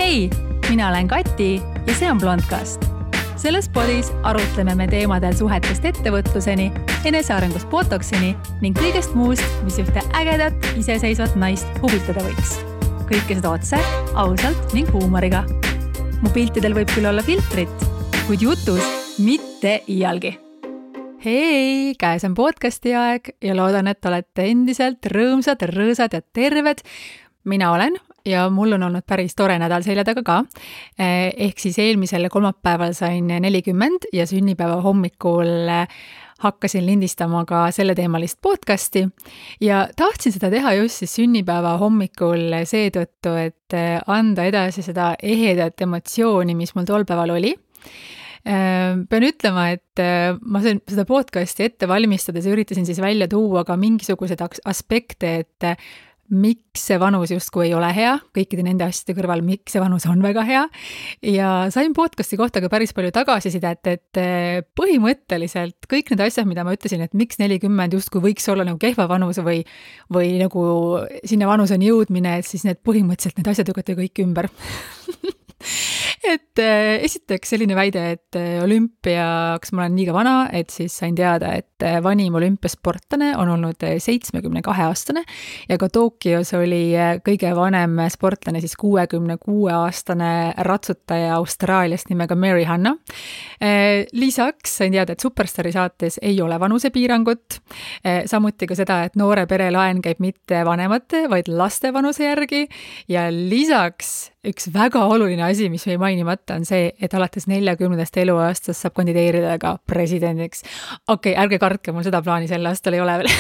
Hei, mina olen Kati ja see on Blondcast. Selles podis arutleme me teemadel suhetest ettevõtluseni, enesearengust botoksini ning kõigest muust, mis ühte ägedat, iseseisvat naist huvitada võiks. Kõike seda otse, ausalt ning huumoriga. Mu piltidel võib küll olla filtrit, kuid jutus mitte iialgi. Hei, käes on podcasti aeg ja loodan, et olete endiselt rõõmsad, rõõsad ja terved. Mina olen ja mul on olnud päris tore nädal selja taga ka. Ehk siis eelmisel kolmapäeval sain 40 ja sünnipäeva hommikul hakkasin lindistama ka selleteemalist podcasti ja tahtsin seda teha just siis sünnipäeva hommikul seetõttu, et anda edasi seda ehedat emotsiooni, mis mul tol päeval oli. Pean ütlema, et ma seda podcasti ette valmistades üritasin siis välja tuua ka mingisugused aspekte, et miks see vanus justkui ei ole hea, kõikide nende asjade kõrval, miks see vanus on väga hea. Ja sain podcasti kohta ka päris palju tagasisidet, et põhimõtteliselt kõik need asjad, mida ma ütlesin, et miks 40 justkui võiks olla nagu kehva vanus või nagu sinna vanuseni jõudmine, et siis need põhimõtteliselt need asjad lükati kõik ümber. Et esiteks selline väide, et olümpiaks ma olen liiga vana, et siis sain teada, et vanim olümpiasportlane on olnud 72-aastane ja ka Tokyos oli kõige vanem sportlane, siis 66-aastane ratsutaja Austraaliast nimega Mary Hanna. Lisaks sain teada, et Superstari saates ei ole vanusepiirangut, samuti ka seda, et noore pere laen käib mitte vanemate, vaid laste vanuse järgi ja lisaks üks väga oluline asi, mis või mainimata on see, et alates 40. eluaastast saab kandideerida ka presidendiks. Okei, ärge kartke, mul seda plaani sel aastal ei ole veel.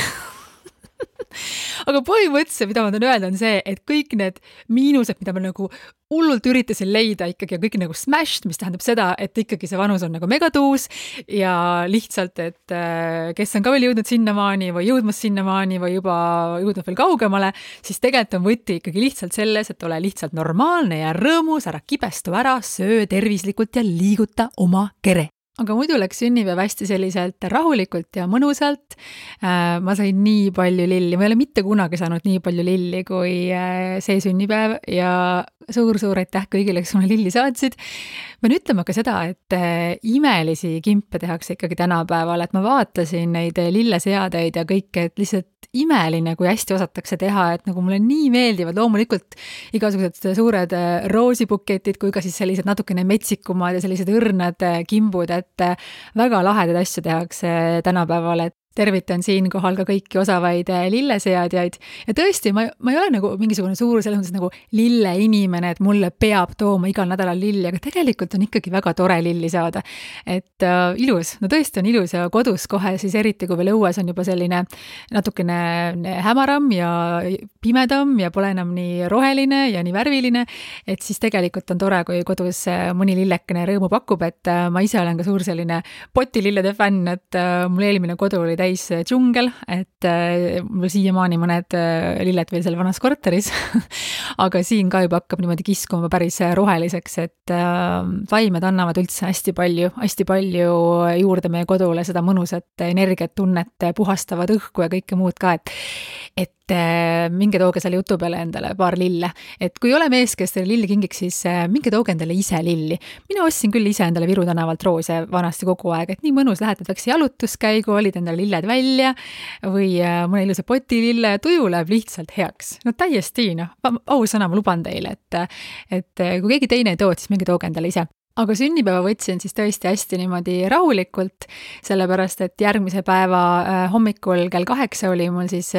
Aga põhimõtteliselt, mida ma tahan öelda, on see, et kõik need miinused, mida ma nagu hullult üritasin leida ikkagi ja kõik nagu smashed, mis tähendab seda, et ikkagi see vanus on nagu megatuus ja lihtsalt, et kes on ka veel jõudnud sinnamaani või jõudmas sinnamaani või juba jõudnud veel kaugemale, siis tegelikult on võti ikkagi lihtsalt selles, et ole lihtsalt normaalne ja rõõmus, ära kibestu ära, söö tervislikult ja liiguta oma kere. Aga muidu läks sünnipäev hästi selliselt rahulikult ja mõnusalt. Ma sain nii palju lilli. Ma ei ole mitte kunagi saanud nii palju lilli kui see sünnipäev ja suur aitäh kõigile, kes mulle lilli saatsid. Ma nüüd ütlema ka seda, et imelisi kimpe tehakse ikkagi tänapäeval, et ma vaatasin neid lilleseadeid ja kõike, et lihtsalt imeline, kui hästi osatakse teha, et nagu mulle nii meeldivad loomulikult igasugused suured roosibuketid, kui ka siis sellised natukene metsikumad ja sellised õrnad kimbud, et väga lahedad asju tehakse tänapäeval, et tervitan siinkohal ka kõiki osavaid lilleseadjaid. Ja tõesti, ma ei ole nagu mingisugune suur selles mõttes nagu lille inimene, et mulle peab tooma igal nädalal lilli, aga tegelikult on ikkagi väga tore lilli saada. Et ilus, no tõesti on ilus ja kodus kohe siis eriti, kui veel õues on juba selline natukene hämaram ja pimedam ja pole enam nii roheline ja nii värviline, et siis tegelikult on tore, kui kodus mõni lillekene rõõmu pakub, et ma ise olen ka suur selline potilillede fänn, et mul eelmine kodu oli täis džungel, et mul siiamaani mõned lilled veel seal vanas korteris, aga siin ka juba hakkab niimoodi kiskuma päris roheliseks, et vaimed annavad üldse hästi palju juurde meie kodule seda mõnusat energiat, tunnet, puhastavad õhku ja kõike muud ka, et minge tooge selle jutu peale endale paar lille. Et kui ole mees, kes teile lilli kingiks, siis minge tooge endale ise lilli. Mina ostsin küll ise endale Viru tänavalt roose vanasti kogu aeg, et nii mõnus lähed, väikse jalutuskäigu, olid endale lilled välja või mõne ilusa potilille, tuju läheb lihtsalt heaks. No täiesti, ausõna, ma luban teile, et kui keegi teine ei too, siis minge tooge endale ise. Aga sünnipäeva võtsin siis tõesti hästi niimoodi rahulikult, sellepärast, et järgmise päeva hommikul kell 8 oli mul siis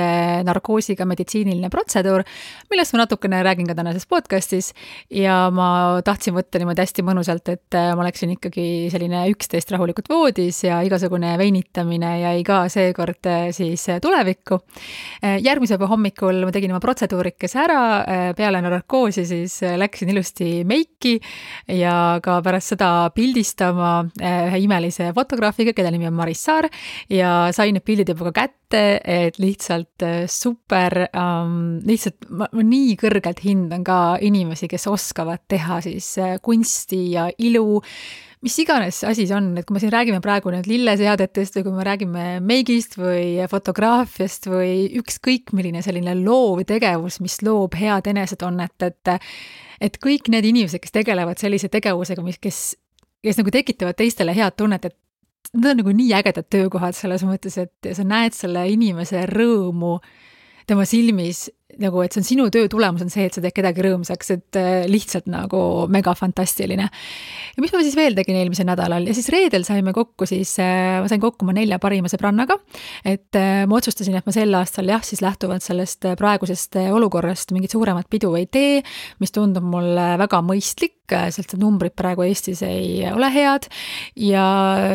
narkoosiga meditsiiniline protseduur, millest ma natukene räägin ka tänases podcastis ja ma tahtsin võtta niimoodi hästi mõnusalt, et ma oleksin ikkagi selline 11 rahulikult voodis ja igasugune veinitamine jäi ka seekord siis tulevikku. Järgmise päeva hommikul ma tegin oma protseduurikese ära, peale narkoosi siis läksin ilusti meiki ja ka pärast seda pildistama ühe imelise fotograafiga, keda nimi on Maris Saar ja sain need pildid juba ka kätte, et lihtsalt super, lihtsalt ma nii kõrgelt hindan ka inimesi, kes oskavad teha siis kunsti ja ilu, mis iganes asi see on, et kui me siin räägime praegu nüüd lilleseadetest või kui me räägime meigist või fotograafiast või ükskõik milline selline loov tegevus, mis loob head enesetunnet, et kõik need inimesed, kes tegelevad sellise tegevusega, kes nagu tekitavad teistele head tunnet, et need on nagu nii ägedad töökohad selles mõttes, et sa näed selle inimese rõõmu tema silmis, nagu, et see on sinu töö tulemus on see, et sa teed kedagi rõõmsaks, et lihtsalt nagu mega fantastiline. Ja mis ma siis veel tegin eelmisel nädalal ja siis reedel saime kokku siis, ma sain kokku oma 4 parima sõbrannaga, et ma otsustasin, et ma sel aastal siis lähtuvalt sellest praegusest olukorrast mingit suuremat pidu ei tee, mis tundub mulle väga mõistlik, sest numbrid praegu Eestis ei ole head ja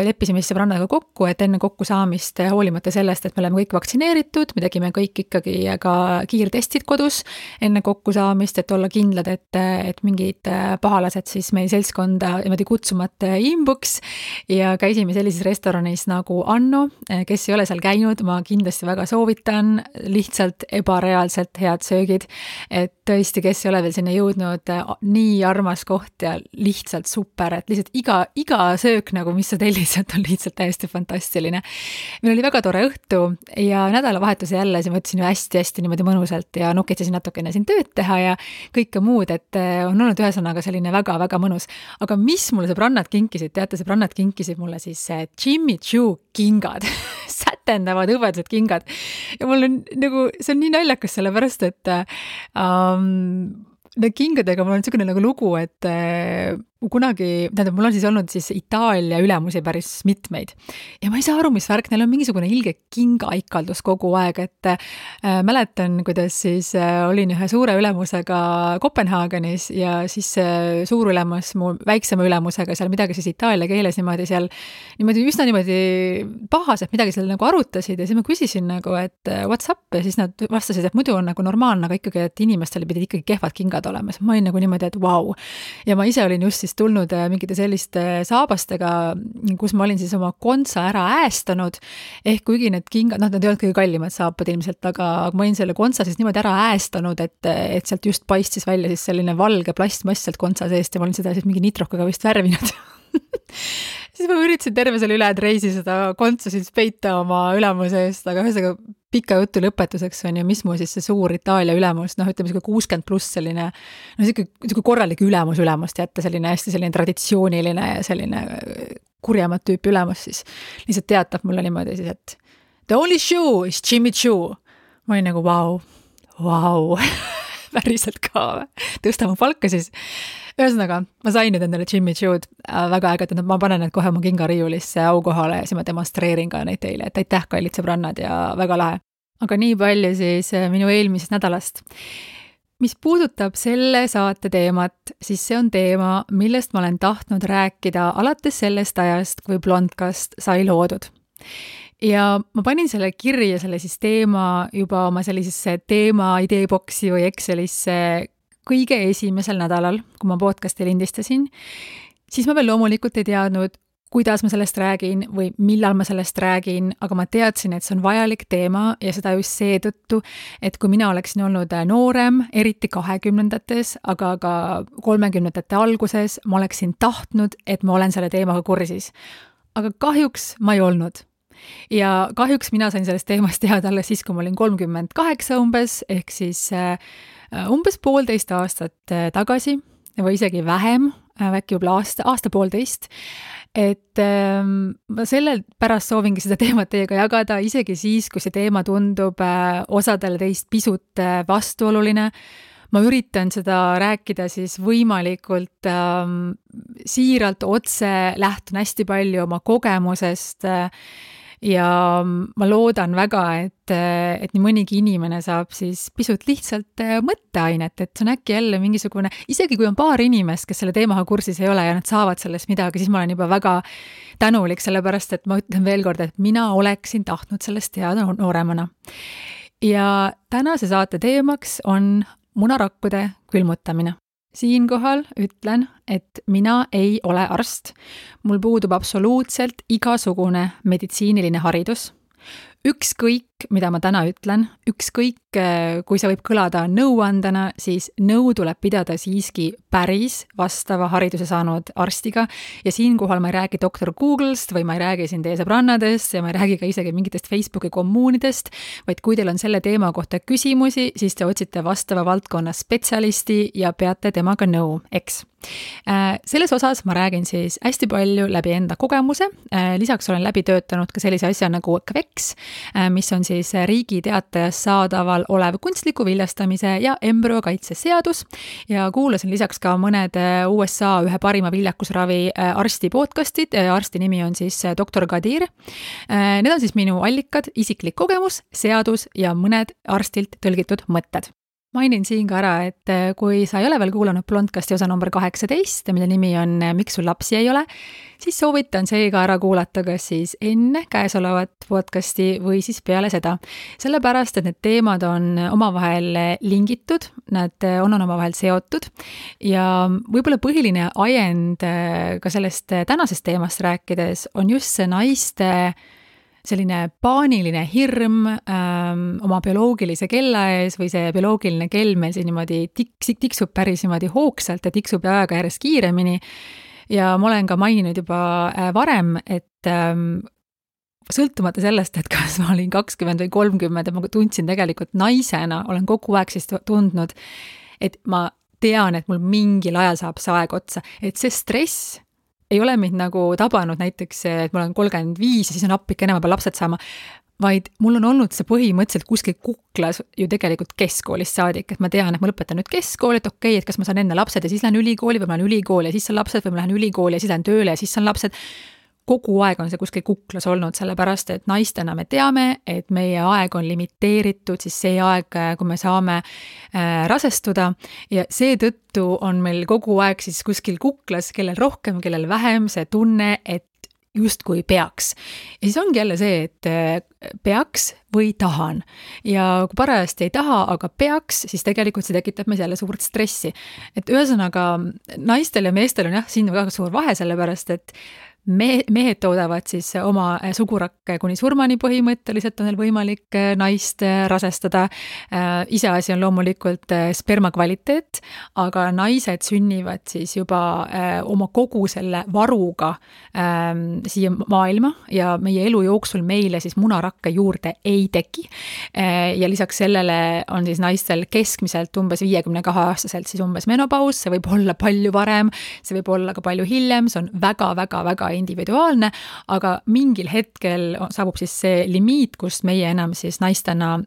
leppisime siis sõbrannaga kokku, et enne kokkusaamist hoolimata sellest, et me oleme kõik vaktsineeritud, me tegime kõik ikkagi ka kiirtestid kodus enne kokkusaamist, et olla kindlad, et mingid pahalased siis meie seltskonda niimoodi kutsumata imbuks ja käisime sellises restoranis nagu Anno, kes ei ole seal käinud, ma kindlasti väga soovitan, lihtsalt ebareaalselt head söögid, et tõesti, kes ei ole veel sinna jõudnud, nii armas koht ja lihtsalt super, et lihtsalt iga söök nagu, mis sa tellid, on lihtsalt täiesti fantastiline. Meil oli väga tore õhtu ja nädalavahetuse jälle siin võtsin hästi-hästi niimoodi mõnusalt ja nukitsesin natukene siin tööd teha ja kõike muud, et on olnud ühesõnaga selline väga-väga mõnus. Aga mis mulle sõbrannad kinkisid? Teate, sõbrannad kinkisid mulle siis Jimmy Choo kingad, sätendavad hõbedased kingad. Ja mul on nagu, see on nii naljakas sellepärast, et need kingadega mul on niisugune nagu lugu, et kunagi, mul on siis olnud siis Itaalia ülemusi päris mitmeid ja ma ei saa aru, mis värk, neil on mingisugune ilge kingaikaldus kogu aeg, et mäletan, kuidas siis olin ühe suure ülemusega Kopenhaagenis ja siis suur ülemus mu väiksema ülemusega seal midagi siis itaalia keeles niimoodi seal üsna niimoodi pahaselt midagi seal nagu arutasid ja siis ma küsisin nagu, et what's up ja siis nad vastasid, et muidu on nagu normaalne, aga ikkagi, et inimestel pidid ikkagi kehvad kingad olema. Ma olin nagu niimoodi, et vau. Ja ma ise olin just siis tulnud mingite selliste saabastega, kus ma olin siis oma kontsa ära äästanud, ehk kuigi need kingad, nad ei olnud kõige kallimad saapad ilmselt, aga ma olin selle kontsa siis niimoodi ära äästanud, et sealt just paistis välja siis selline valge plastmass sealt kontsa seest ja ma olin seda siis mingi nitrokaga vist värvinud. Siis ma üritasin terve selle ülejäänud reisi seda kontsa siis peita oma ülemuse eest, aga ühesõnaga pika jutu lõpetuseks on ju, mis mu siis see suur Itaalia ülemus, ütleme 60 pluss selline, selline korralik ülemust jätta, selline hästi selline traditsiooniline ja selline kurjamat tüüpi ülemus siis lihtsalt teatab mulle niimoodi siis, et the only shoe is Jimmy Choo. Ma olin nagu vau. Päriselt ka, tõsta mu palka siis. Ühesõnaga, ma sain nüüd endale Jimmy Choo'd väga ägedad, ma panen need kohe mu kingariiulisse aukohale ja siis ma demonstreerin ka neid teile, et aitäh, kallid sõbrannad ja väga lahe. Aga nii palju siis minu eelmisest nädalast. Mis puudutab selle saate teemat, siis see on teema, millest ma olen tahtnud rääkida alates sellest ajast, kui Blondcast sai loodud. Ja ma panin selle kirja selle siis teema juba oma sellisesse teema ideeboksi või Excelisse kõige esimesel nädalal, kui ma podcasti lindistasin, siis ma veel loomulikult ei teadnud, kuidas ma sellest räägin või millal ma sellest räägin, aga ma teadsin, et see on vajalik teema ja seda just seetõttu, et kui mina oleksin olnud noorem, eriti 20-ndates, aga ka 30-ndate alguses, ma oleksin tahtnud, et ma olen selle teemaga kursis. Aga kahjuks ma ei olnud. Ja kahjuks mina sain sellest teemast teada alles siis, kui ma olin 38 umbes, ehk siis umbes 1,5 aastat tagasi või isegi vähem, äkki juba aasta-1,5, et ma sellel pärast soovingi seda teemat teiega jagada, isegi siis, kui see teema tundub osadele teist pisut vastuoluline. Ma üritan seda rääkida siis võimalikult siiralt otse, lähtun hästi palju oma kogemusest ja ma loodan väga, et nii mõnigi inimene saab siis pisut lihtsalt mõtteainet, et see on äkki jälle mingisugune, isegi kui on paar inimest, kes selle teemaga kursis ei ole ja nad saavad sellest midagi, siis ma olen juba väga tänulik, sellepärast et ma ütlen veel kord, et mina oleksin tahtnud sellest teada nooremana. Ja tänase saate teemaks on munarakkude külmutamine. Siinkohal ütlen, et mina ei ole arst. Mul puudub absoluutselt igasugune meditsiiniline haridus. ükskõik, mida ma täna ütlen, ükskõik, kui see võib kõlada nõuandena, siis nõu tuleb pidada siiski päris vastava hariduse saanud arstiga ja siinkohal ma ei räägi doktor Google'st või ma ei räägi siin teie sõbrannadest ja ma ei räägi ka isegi mingitest Facebooki kommuunidest, vaid kui teil on selle teema kohta küsimusi, siis te otsite vastava valdkonna spetsialisti ja peate temaga nõu, eks. Selles osas ma räägin siis hästi palju läbi enda kogemuse, lisaks olen läbi töötanud ka sellise asja nagu KVEX, mis on siis Riigi Teatajas saadaval olev kunstliku viljastamise ja embrüokaitse seadus ja kuulasin lisaks ka mõned USA ühe parima viljakusravi arsti podcastid, arsti nimi on siis doktor Kadir. Need on siis minu allikad, isiklik kogemus, seadus ja mõned arstilt tõlgitud mõtted. Mainin siin ka ära, et kui sa ei ole veel kuulanud Blondcasti osa number 18, mille nimi on Miks sul lapsi ei ole, siis soovitan seega ära kuulata kas siis enne käesolevat podcasti või siis peale seda. Sellepärast, et need teemad on omavahel lingitud, nad on omavahel seotud ja võib-olla põhiline ajend ka sellest tänasest teemast rääkides on just see naiste selline paaniline hirm oma bioloogilise kella ees või see bioloogiline kell meil siin niimoodi tiksub päris niimoodi hoogsalt ja tiksub ajaga järjest kiiremini. Ja ma olen ka maininud juba varem, et sõltumata sellest, et kas ma olin 20 või 30, et ma tundsin tegelikult naisena, olen kogu aeg siis tundnud, et ma tean, et mul mingil ajal saab see aeg otsa, et see stress ei ole mind nagu tabanud näiteks, et ma olen 35 ja siis on appike enam peal lapsed saama, vaid mul on olnud see põhimõtteliselt kuskil kuklas ju tegelikult keskkoolist saadik, et ma tean, et ma lõpetan nüüd keskkooli, et okei, et kas ma saan enne lapsed ja siis lähen ülikooli või ma lähen ülikooli ja siis saan lapsed või ma lähen ülikooli ja siis lähen tööle ja siis saan lapsed. Kogu aeg on see kuskil kuklas olnud, sellepärast, et naistena me teame, et meie aeg on limiteeritud, siis see aeg, kui me saame rasestuda ja seetõttu on meil kogu aeg siis kuskil kuklas, kellel rohkem, kellel vähem see tunne, et justkui peaks. Ja siis ongi jälle see, et peaks või tahan. Ja kui parajasti ei taha, aga peaks, siis tegelikult see tekitab meis jälle suurt stressi. Et ühesõnaga, naistel ja meestel on jah, siin väga suur vahe, sellepärast, et mehed toodavad siis oma sugurakke kuni surmani põhimõtteliselt on neil võimalik naist rasestada. Iseasi on loomulikult sperma kvaliteet, aga naised sünnivad siis juba oma kogu selle varuga siia maailma ja meie elu jooksul meile siis munarakke juurde ei teki. Ja lisaks sellele on siis naistel keskmiselt umbes 52-aastaselt siis umbes menopaus, see võib olla palju varem, see võib olla ka palju hiljem, see on väga individuaalne, aga mingil hetkel saabub siis see limiit, kust meie enam siis naistena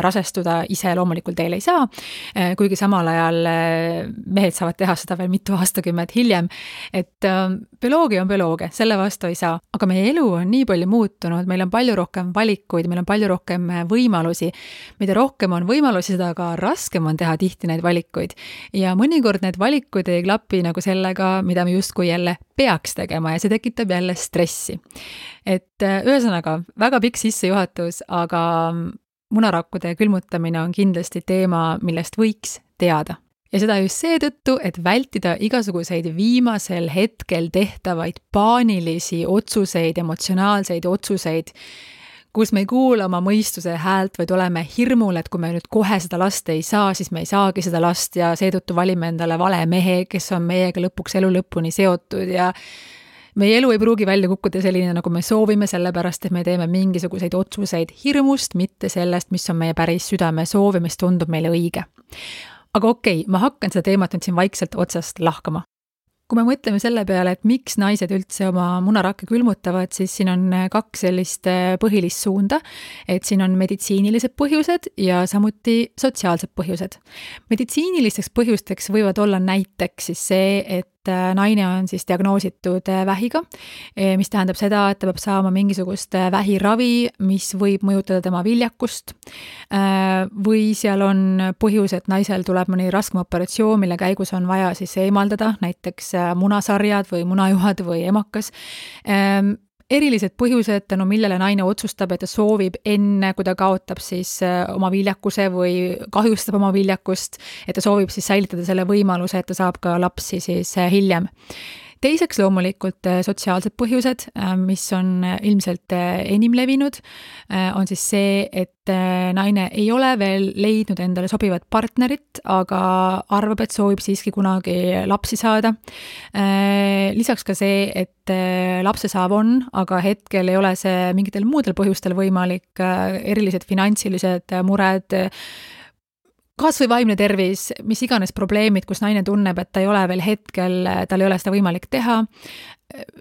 rasestuda ise loomulikult teil ei saa, kuigi samal ajal mehed saavad teha seda veel mitu aastakümmet hiljem, et bioloogia on bioloogia, selle vastu ei saa, aga meie elu on nii palju muutunud, meil on palju rohkem valikuid, meil on palju rohkem võimalusi, mida rohkem on võimalusi, seda ka raskem on teha tihti neid valikuid ja mõnikord need valikud ei klapi nagu sellega, mida me justkui jälle peaks tegema ja see tekitab jälle stressi. Et ühesõnaga, väga pikk sissejuhatus, aga munarakkude külmutamine on kindlasti teema, millest võiks teada. Ja seda just seetõttu, et vältida igasuguseid viimasel hetkel tehtavaid paanilisi otsuseid, emotsionaalseid otsuseid, kus me ei kuula oma mõistuse häält, vaid oleme hirmul, et kui me nüüd kohe seda last ei saa, siis me ei saagi seda last ja seetõttu valime endale vale mehe, kes on meiega lõpuks elu lõpuni seotud ja meie elu ei pruugi välja kukkuda selline, nagu me soovime, sellepärast, et me teeme mingisuguseid otsuseid hirmust, mitte sellest, mis on meie päris südame soov ja mis tundub meile õige. Aga okei, ma hakkan seda teemat nüüd siin vaikselt otsast lahkama. Kui me mõtleme selle peale, et miks naised üldse oma munarakke külmutavad, siis siin on 2 sellist põhilist suunda, et siin on meditsiinilised põhjused ja samuti sotsiaalsed põhjused. Meditsiinilisteks põhjusteks võivad olla näiteks siis see, et naine on siis diagnoositud vähiga, mis tähendab seda, et ta peab saama mingisugust vähiravi, mis võib mõjutada tema viljakust. Või seal on põhjus, et naisel tuleb mõni raskem operatsioon, mille käigus on vaja siis eemaldada, näiteks munasarjad või munajuhad või emakas. Erilised põhjused, tänu millele naine otsustab, et ta soovib enne, kui ta kaotab siis oma viljakuse või kahjustab oma viljakust, et ta soovib siis säilitada selle võimaluse, et ta saab ka lapsi siis hiljem. Teiseks loomulikult sotsiaalsed põhjused, mis on ilmselt enim levinud, on siis see, et naine ei ole veel leidnud endale sobivat partnerit, aga arvab, et soovib siiski kunagi lapsi saada. Lisaks ka see, et lapse saav on, aga hetkel ei ole see mingitel muudel põhjustel võimalik, erilised finantsilised mured, kas või vaimne tervis, mis iganes probleemid, kus naine tunneb, et ta ei ole veel hetkel, tal ei ole seda võimalik teha.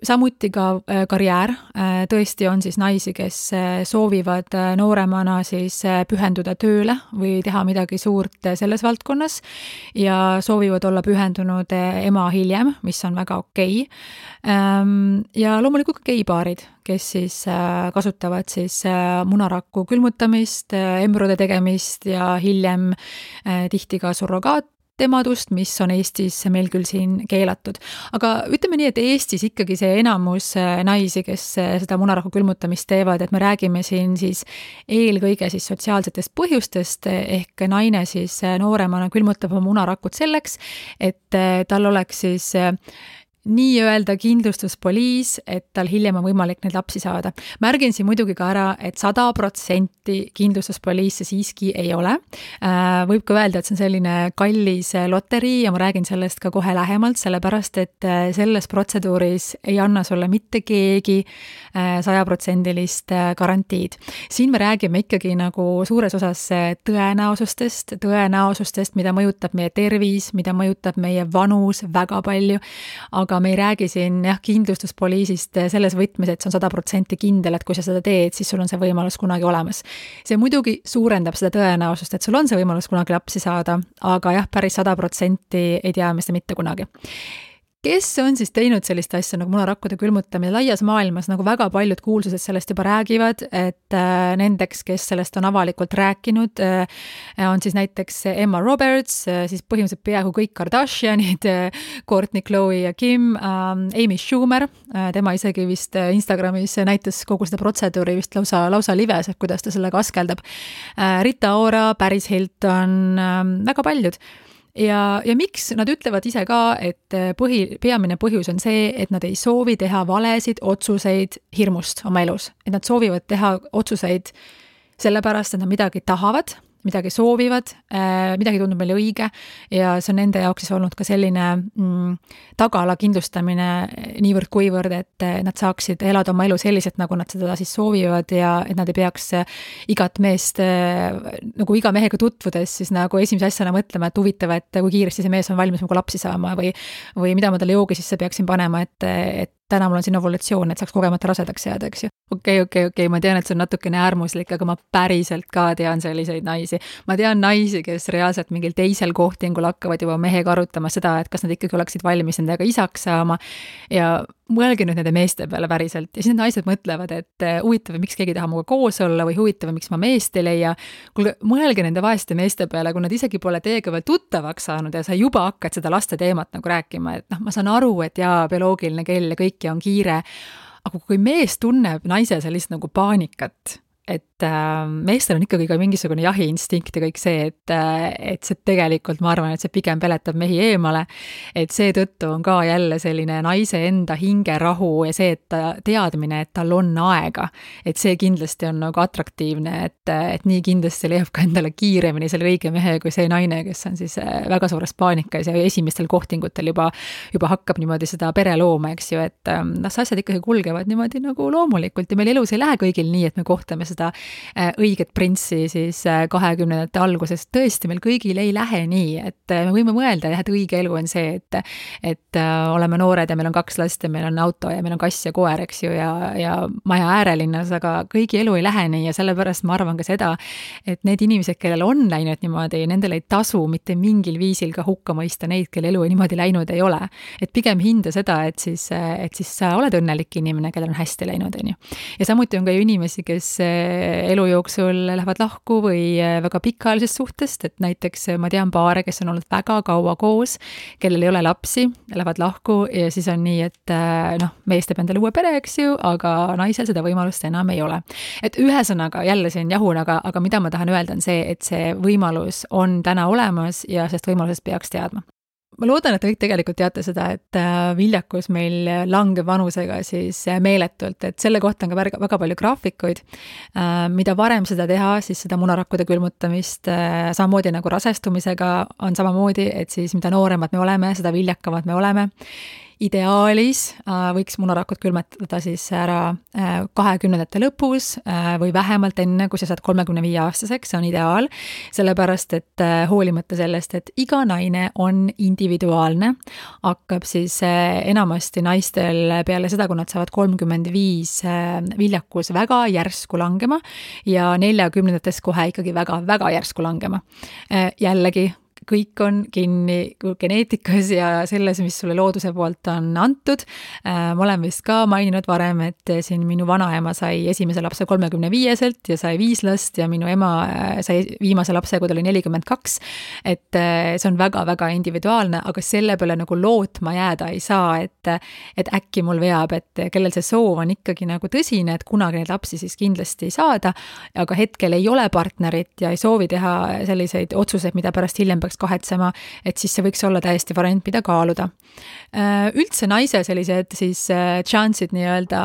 Samuti ka karjäär, tõesti on siis naisi, kes soovivad nooremana siis pühenduda tööle või teha midagi suurt selles valdkonnas ja soovivad olla pühendunud ema hiljem, mis on väga okei. Ja loomulikult ka geipaarid, kes siis kasutavad siis munaraku külmutamist, embrüode tegemist ja hiljem tihti ka surrogaatemadust, mis on Eestis meil küll siin keelatud. Aga ütleme nii, et Eestis ikkagi see enamus naisi, kes seda munaraku külmutamist teevad, et me räägime siin siis eelkõige siis sotsiaalsetest põhjustest, ehk naine siis nooremana külmutab oma munarakut selleks, et tal oleks siis nii-öelda kindlustuspoliis, et tal hiljem on võimalik neid lapsi saada. Märgin siin muidugi ka ära, et 100% kindlustuspoliis see siiski ei ole. Võib ka öelda, et see on selline kallis loterii ja ma räägin sellest ka kohe lähemalt, sellepärast, et selles protseduuris ei anna sulle mitte keegi 100% garantiid. Siin me räägime ikkagi nagu suures osas tõenäosustest, mida mõjutab meie tervis, mida mõjutab meie vanus väga palju, aga me ei räägi siin kindlustuspoliisist selles võtmes, et see on 100% kindel, et kui sa seda teed, siis sul on see võimalus kunagi olemas. See muidugi suurendab seda tõenäosust, et sul on see võimalus kunagi lapsi saada, aga päris 100% ei tea me seda mitte kunagi. Kes on siis teinud sellist asja nagu munarakkude külmutamine laias maailmas, nagu väga paljud kuulsused sellest juba räägivad, et nendeks, kes sellest on avalikult rääkinud, on siis näiteks Emma Roberts, siis põhimõtteliselt peaaegu kõik Kardashianid, Kourtney, Khloe ja Kim, Amy Schumer, tema isegi vist Instagramis näitas kogu seda protseduuri vist lausa lives, et kuidas ta sellega askeldab, Rita Ora, Paris Hilton, väga paljud. Ja miks nad ütlevad ise ka, et peamine põhjus on see, et nad ei soovi teha valesid otsuseid hirmust oma elus. Et nad soovivad teha otsuseid sellepärast, et nad midagi tahavad, midagi soovivad, midagi tundub meile õige ja see on nende jaoks siis olnud ka selline tagala kindlustamine niivõrd kuivõrd, et nad saaksid elada oma elu selliselt, nagu nad seda siis soovivad ja et nad ei peaks igat meest, nagu iga mehega tutvudes siis nagu esimese asjana mõtlema, et huvitav, et kui kiiresti see mees on valmis nagu lapsi saama või mida ma talle joogi sisse peaksin panema, et täna mul on siin ovulatsioon, et saaks kogemata rasedaks jääda, eks ju. Okei, ma tean, et see on natukene äärmuslik, aga ma päriselt ka tean selliseid naisi. Ma tean naisi, kes reaalselt mingil teisel kohtingul hakkavad juba mehega arutama seda, et kas nad ikkagi oleksid valmis nendega isaks saama ja mõelge nüüd nende meeste peale päriselt ja siis need naised mõtlevad, et huvitav, miks keegi taha muga koos olla või huvitav, miks ma meest ei leia. Kuulge, mõelge nende vaeste meeste peale, kui nad isegi pole teiega veel tuttavaks saanud ja sa juba hakkad seda laste teemat nagu rääkima, et ma saan aru, et bioloogiline kell ja kõik ja on kiire, aga kui mees tunneb naise sellist nagu paanikat, et meestel on ikkagi ka mingisugune jahiinstinkt ja kõik see, et see tegelikult, ma arvan, et see pigem peletab mehi eemale, et seetõttu on ka jälle selline naise enda hingerahu ja see, et teadmine, et tal on aega, et see kindlasti on nagu atraktiivne, et nii kindlasti leiab ka endale kiiremini selle õige mehe kui see naine, kes on siis väga suures paanikas ja esimestel kohtingutel juba hakkab niimoodi seda pere looma, eks ju, et las asjad ikkagi kulgevad niimoodi nagu loomulikult ja meil elus ei lähe kõigil nii, et me kohtame seda õiget printsi siis 20. alguses. Tõesti, meil kõigil ei lähe nii, et me võime mõelda, et õige elu on see, et oleme noored ja meil on 2 last ja meil on auto ja meil on kass ja koer, eks ju, ja maja äärelinnas, aga kõigi elu ei lähe nii ja sellepärast ma arvan ka seda, et need inimesed, kellel on läinud niimoodi, nendel ei tasu mitte mingil viisil ka hukka mõista neid, kelle elu niimoodi läinud ei ole. Et pigem hinda seda, et siis sa oled õnnelik inimene, kellel on hästi läinud, on ju. Ja samuti on ka ju inimesi, kes elu jooksul lähevad lahku või väga pikaajalisest suhtest, et näiteks ma tean paare, kes on olnud väga kaua koos, kellel ei ole lapsi, lähevad lahku ja siis on nii, et mees teeb endale uue pere, eks ju, aga naisel seda võimalust enam ei ole. Et ühesõnaga, jälle siin jahun, aga mida ma tahan öelda on see, et see võimalus on täna olemas ja sellest võimalusest peaks teadma. ma loodan, et te kõik tegelikult teate seda, et viljakus meil langeb vanusega siis meeletult, et selle kohta on ka väga palju graafikuid. Mida varem seda teha, siis seda munarakkude külmutamist, samamoodi nagu rasestumisega on samamoodi, et siis mida nooremad me oleme, seda viljakamad me oleme. Ideaalis võiks munarakud külmetada siis ära 20 lõpus või vähemalt enne, kui sa saad 35-aastaseks, see on ideaal, sellepärast et hoolimata sellest, et iga naine on individuaalne, hakkab siis enamasti naistel peale seda, kui nad saavad 35 viljakus väga järsku langema ja 40-ndates kohe ikkagi väga järsku langema. Jällegi, kõik on kinni geneetikas ja selles, mis sulle looduse poolt on antud. Ma olen vist ka maininud varem, et siin minu vanaema sai esimese lapse 35-selt ja sai 5 last ja minu ema sai viimase lapse, kui ta oli 42. Et see on väga individuaalne, aga selle peale nagu lootma jääda ei saa, et äkki mul veab, et kellel see soov on ikkagi nagu tõsine, et kunagi neid lapsi siis kindlasti ei saada, aga hetkel ei ole partnerit ja ei soovi teha selliseid otsuseid, mida pärast hiljem peaks kahetsema, et siis see võiks olla täiesti variant, mida kaaluda. Üldse naise sellised siis chance'id nii-öelda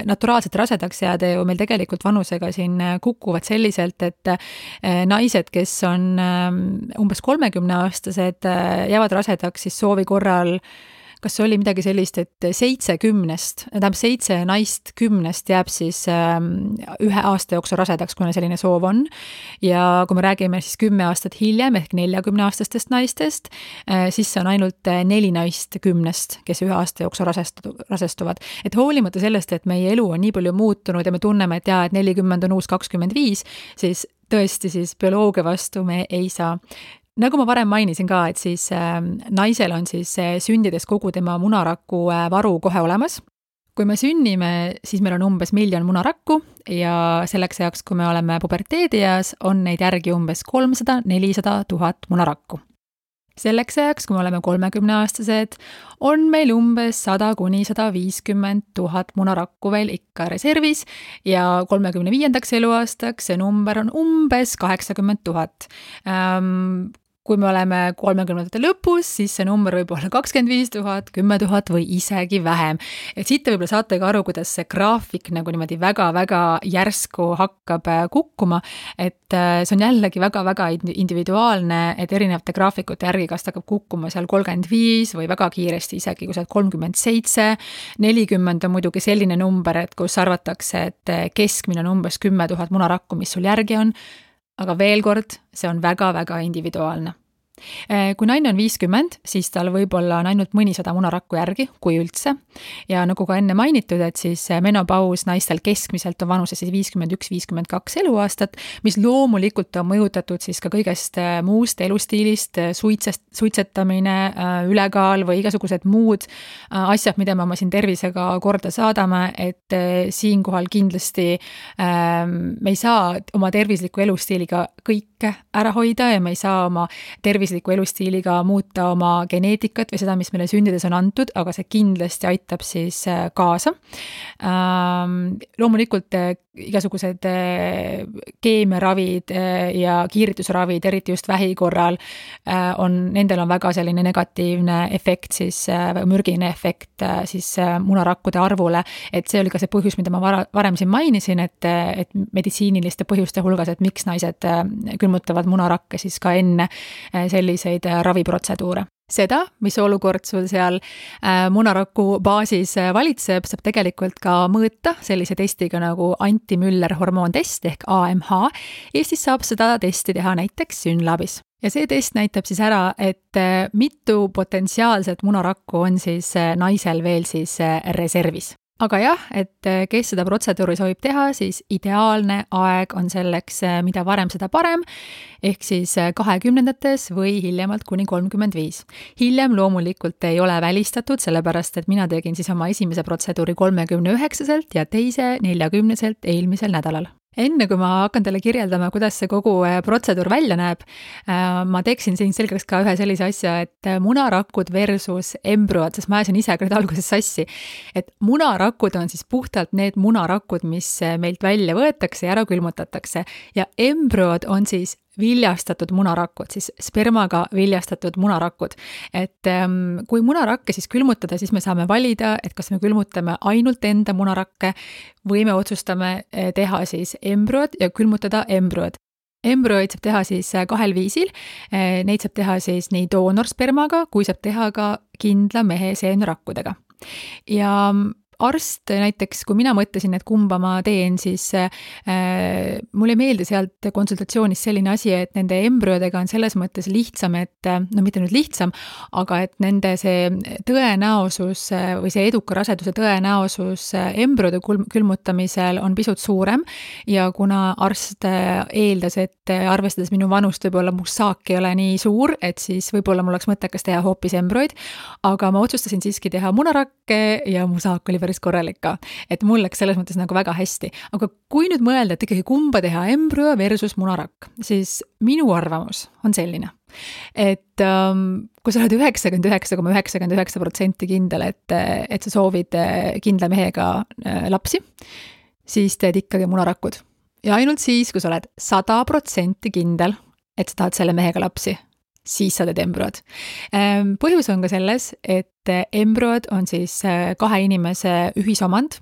naturaalselt rasedaks jääda ju meil tegelikult vanusega siin kukuvad selliselt, et naised, kes on umbes 30-aastased, jäävad rasedaks siis soovi korral, kas oli midagi sellist, et 7 naist 10 jääb siis 1 aasta jooksul rasedaks, kuna selline soov on. Ja kui me räägime siis 10 aastat hiljem ehk 40-aastastest naistest, siis see on ainult 4 naist 10, kes 1 aasta jooksul rasestuvad. Et hoolimata sellest, et meie elu on nii palju muutunud ja me tunneme, et 40 on uus 25, siis tõesti siis bioloogia vastu me ei saa. Nagu ma varem mainisin ka, et siis naisel on siis sündides kogu tema munaraku varu kohe olemas. Kui me sünnime, siis meil on umbes 1 miljon munarakku ja selleks ajaks, kui me oleme puberteedieas, on neid järgi umbes 300-400 000 munarakku. Selleks ajaks, kui me oleme 30-aastased, on meil umbes 100-150 000 munarakku veel ikka reservis ja 35. eluaastaks see number on umbes 80 000. Kui me oleme 30. lõpus, siis see number võib olla 25 000, 10 000 või isegi vähem. Et siit te võib-olla saate ka aru, kuidas see graafik nagu niimoodi väga järsku hakkab kukkuma, et see on jällegi väga individuaalne, et erinevate graafikute järgi, kas ta hakkab kukkuma seal 35 või väga kiiresti isegi, kui sa oled 37, 40 on muidugi selline number, et kus arvatakse, et keskmine on umbes 10 000 munarakku, mis sul järgi on, aga veel kord, see on väga individuaalne. Kui naine on 50, siis tal võib-olla on ainult mõnisada munarakku järgi, kui üldse. Ja nagu ka enne mainitud, et siis menopaus naistel keskmiselt on vanuse siis 51-52 eluaastat, mis loomulikult on mõjutatud siis ka kõigest muust elustiilist, suitsetamine, ülekaal või igasugused muud asjad, mida me oma siin tervisega korda saadame, et siinkohal kindlasti me ei saa oma tervisliku elustiiliga kõike ära hoida ja me ei saa oma tervisliku elustiiliga muuta oma geneetikat või seda, mis meile sündides on antud, aga see kindlasti aitab siis kaasa. Loomulikult igasugused keemiaravid ja kiiritusravid, eriti just vähi korral, nendel on väga selline negatiivne efekt, siis mürgine efekt siis munarakkude arvule, et see oli ka see põhjus, mida ma varem siin mainisin, et meditsiiniliste põhjuste hulgas, et miks naised külmutavad munarakke siis ka enne selliseid raviprotseduure. Seda, mis olukord sul seal munaraku baasis valitseb, saab tegelikult ka mõõta sellise testiga nagu anti-Müller hormoontest ehk AMH. Eestis saab seda testi teha näiteks Synlabis. Ja see test näitab siis ära, et mitu potentsiaalset munarakku on siis naisel veel siis reservis. Aga jah, et kes seda protseduuri soovib teha, siis ideaalne aeg on selleks, mida varem seda parem, ehk siis 20-ndates või hiljemalt kuni 35. Hiljem loomulikult ei ole välistatud, sellepärast et mina tegin siis oma esimese protseduuri 39-selt ja teise 40-selt eelmisel nädalal. Enne kui ma hakkan teile kirjeldama, kuidas see kogu protseduur välja näeb, ma teeksin siin selgeks ka ühe sellise asja, et munarakud versus embrüod, sest ma ajasin ise küll alguses sassi, et munarakud on siis puhtalt need munarakud, mis meilt välja võetakse ja ära külmutatakse ja embrüod on siis viljastatud munarakud, siis spermaga viljastatud munarakud. Et kui munarakke siis külmutada, siis me saame valida, et kas me külmutame ainult enda munarakke või me otsustame teha siis embrüod ja külmutada embrüod. Embrüoid saab teha siis 2 viisil, neid saab teha siis nii doonorspermaga, kui saab teha ka kindla mehe seenerakkudega. Ja arst näiteks, kui mina mõtlesin, et kumba ma teen, siis mulle ei meeldi sealt konsultatsioonis selline asi, et nende embrüodega on selles mõttes lihtsam, et no mitte nüüd lihtsam, aga et nende see tõenäosus või see eduka raseduse tõenäosus embrüode külmutamisel on pisut suurem ja kuna arst eeldas, et arvestades minu vanust võib-olla mu saak ei ole nii suur, et siis võib-olla mul oleks mõttekas teha hoopis embrüoid, aga ma otsustasin siiski teha munarakke ja mu saak oli päris korralik ka, et mul läks selles mõttes nagu väga hästi. Aga kui nüüd mõelda, et ikkagi kumba teha embrüo versus munarakk, siis minu arvamus on selline, et kui sa oled 99,99% kindel, et sa soovid kindla mehega lapsi, siis teed ikkagi munarakud. Ja ainult siis, kui sa oled 100% kindel, et sa tahad selle mehega lapsi, siis sa teed embrüod. Põhjus on ka selles, et embrüod on siis 2 inimese ühisomand,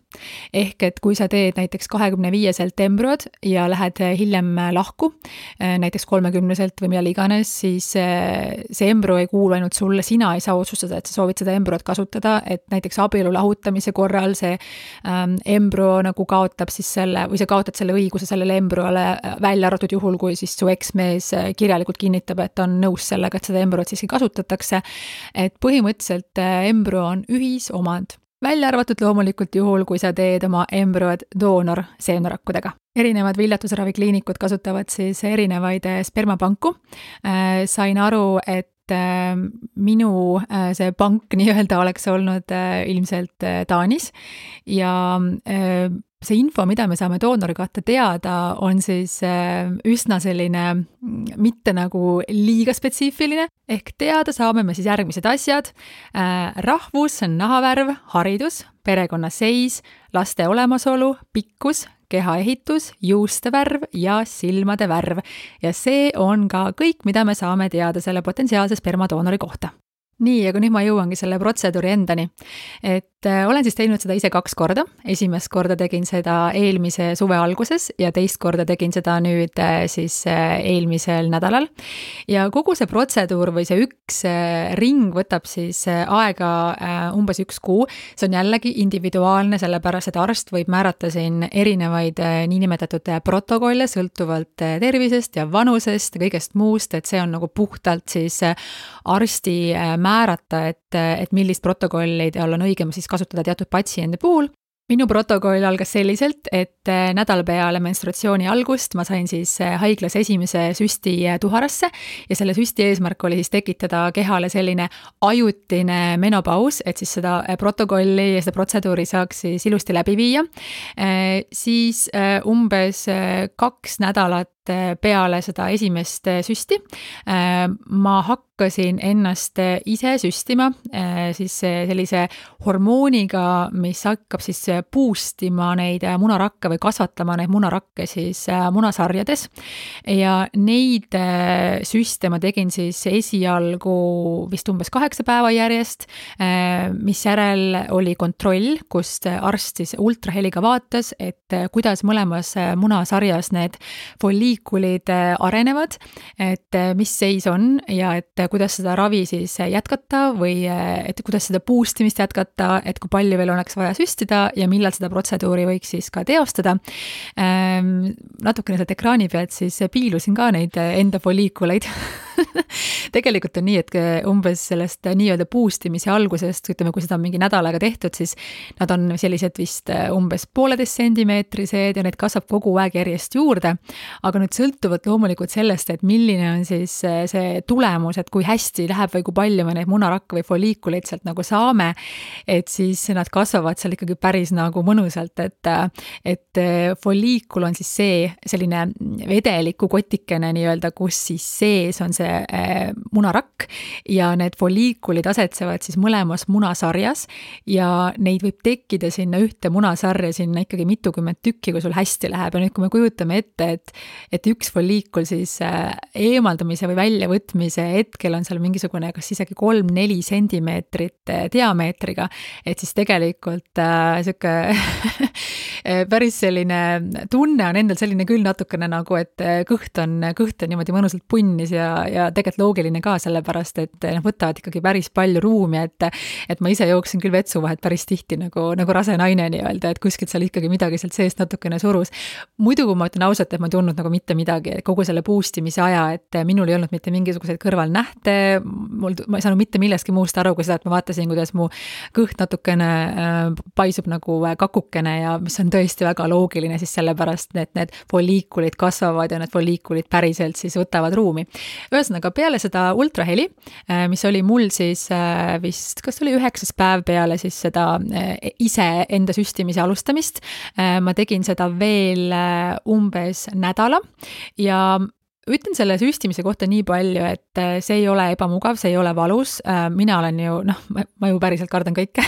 ehk et kui sa teed näiteks 25-selt embrüod ja lähed hiljem lahku, näiteks 30-selt või millal iganes, siis see embrüo ei kuulu ainult sulle, sina ei saa otsustada, et sa soovid seda embrüod kasutada, et näiteks abielu lahutamise korral see embrüo nagu kaotab siis selle, või sa kaotad selle õiguse sellele embrüole välja arvatud juhul, kui siis su eksmees kirjalikult kinnitab, et on nõus sellega, et seda embrüot siiski kasutatakse, et põhimõtteliselt embrüo on ühisomand. Välja arvatud loomulikult juhul, kui sa teed oma embrüod doonor seenerakkudega. Erinevad viljatusravikliinikud kasutavad siis erinevaid spermapanku. Sain aru, et minu see pank nii-öelda oleks olnud ilmselt Taanis ja see info, mida me saame doonori kohta teada, on siis üsna selline mitte nagu liiga spetsiifiline, ehk teada saame me siis järgmised asjad. Rahvus, nahavärv, haridus, perekonnaseis, laste olemasolu, pikkus, kehaehitus, juuste värv ja silmade värv. Ja see on ka kõik, mida me saame teada selle potentsiaalse spermadoonori kohta. Nii, aga nüüd ma jõuangi selle protseduuri endani. Et olen siis teinud seda ise 2 korda. Esimest korda tegin seda eelmise suve alguses ja teist korda tegin seda nüüd siis eelmisel nädalal. Ja kogu see protseduur või see üks ring võtab siis aega umbes 1 kuu. See on jällegi individuaalne, sellepärast et arst võib määrata siin erinevaid niinimetatud protokolle sõltuvalt tervisest ja vanusest ja kõigest muust, et see on nagu puhtalt siis arsti määrata, et millist protokolli tal on õigem siis kasutada teatud patsiendi puhul. Minu protokoll algas selliselt, et nädal peale menstruatsiooni algust ma sain siis haiglas esimese süsti tuharasse ja selle süsti eesmärk oli siis tekitada kehale selline ajutine menopaus, et siis seda protokolli ja seda protseduuri saaks siis ilusti läbi viia. Siis umbes 2 nädalat peale seda esimest süsti ma hakkasin ennast ise süstima siis sellise hormooniga, mis hakkab siis boostima neid munarakke või kasvatama neid munarakke siis munasarjades ja neid süste ma tegin siis esialgu vist umbes 8 päeva järjest, mis järel oli kontroll, kust arst siis ultraheliga vaatas, et kuidas mõlemas munasarjas need folliikulid arenevad, et mis seis on ja et kuidas seda ravi siis jätkata või et kuidas seda boostimist jätkata, et kui palju veel oleks vaja süstida ja millal seda protseduuri võiks siis ka teostada. Natukene sealt ekraani pealt siis piilusin ka neid enda folliikuleid. Tegelikult on nii, et umbes sellest nii-öelda boostimise algusest, ütleme, kui seda on mingi nädal aega tehtud, siis nad on sellised vist umbes 1,5 sentimeetrised ja need kasvab kogu aeg järjest juurde. Aga nüüd sõltuvalt loomulikult sellest, et milline on siis see tulemus, et kui hästi läheb või kui palju me neid munarakke või folliikuleid sealt nagu saame, et siis nad kasvavad seal ikkagi päris nagu mõnusalt, et folliikul on siis see selline vedeliku kotikene nii-öelda, kus siis sees on see munarakk ja need folliikulid asetsevad siis mõlemas munasarjas ja neid võib tekkida sinna ühte munasarja sinna ikkagi mitukümmend tükki, kui sul hästi läheb. Ja nüüd, kui me kujutame ette, et üks folliikul siis eemaldamise või väljavõtmise hetkel on seal mingisugune kas isegi 3-4 sentimeetrit diameetriga, et siis tegelikult sihuke päris selline tunne on endal selline küll natukene nagu, et kõht on niimoodi mõnusalt punnis ja tegelikult loogiline ka sellepärast, et võtavad ikkagi päris palju ruumi, et ma ise jooksin küll vetsuvahet päris tihti nagu rase naine nii-öelda, et kuskilt seal ikkagi midagi sealt seest natukene surus. Muidu, kui ma ütlen ausalt, et ma ei tundnud nagu mitte midagi, kogu selle boostimise aja, et minul ei olnud mitte mingisuguseid kõrvalnähte, ma ei saanud mitte millestki muust aru, kui seda, et ma vaatasin, kuidas mu kõht natukene paisub nagu kakukene ja mis on tõesti väga loogiline siis sellepärast, et need folliikulid kasvavad ja need folliikulid päriselt siis võtavad ruumi. Ühesõnaga, peale seda ultraheli, mis oli mul siis vist, kas oli 9. päev peale siis seda ise enda süstimise alustamist, ma tegin seda veel umbes nädala ja ütlen selle süstimise kohta nii palju, et see ei ole ebamugav, see ei ole valus, mina olen ju, ma ju päriselt kardan kõike.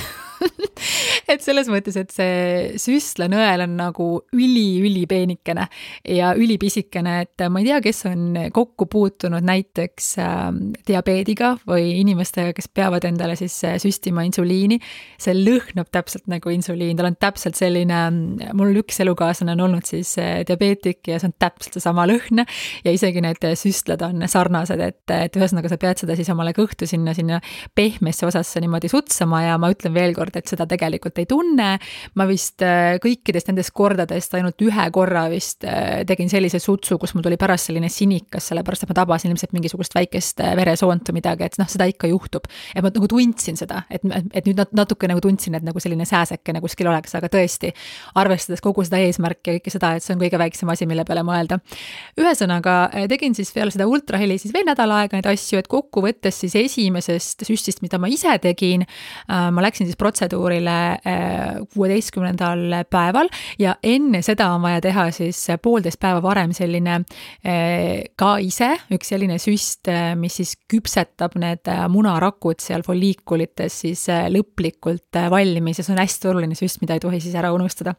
Et selles mõttes, et see süstlanõel on nagu üli peenikene ja ülipisikene, et ma ei tea, kes on kokku puutunud näiteks diabeediga või inimestega, kes peavad endale siis süstima insuliini. See lõhnab täpselt nagu insuliin, tal on täpselt selline, mul üks elukaaslane on olnud siis diabeetik ja see on täpselt seesama lõhn ja isegi need süstlad on sarnased, et ühesõnaga sa pead seda siis omale kõhtu sinna pehmesse osasse niimoodi sutsama ja ma ütlen veel kord, et seda tegelikult ei tunne. Ma vist kõikidest nendest kordadest ainult ühe korra vist tegin sellise sutsu, kus mul tuli pärast selline sinikas, sellepärast et ma tabasin ilmselt mingisugust väikest veresoont või midagi, et seda ikka juhtub. Et ma nagu tundsin seda, et nüüd natuke nagu tundsin, et nagu selline sääsekene kuskil oleks, aga tõesti, arvestades kogu seda eesmärki ja kõike seda, et see on kõige väiksem asi, mille peale mõelda. Ühesõnaga, tegin siis peale seda ultraheli siis veel nädal aega neid asju, et kokku võttes siis esimesest süstist, mida ma ise tegin, ma läksin siis protseduurile 16. päeval ja enne seda on vaja teha siis 1,5 päeva varem selline ka ise üks selline süst, mis siis küpsetab need munarakud seal folliikulites siis lõplikult valmis ja see on hästi oluline süst, mida ei tohi siis ära unustada.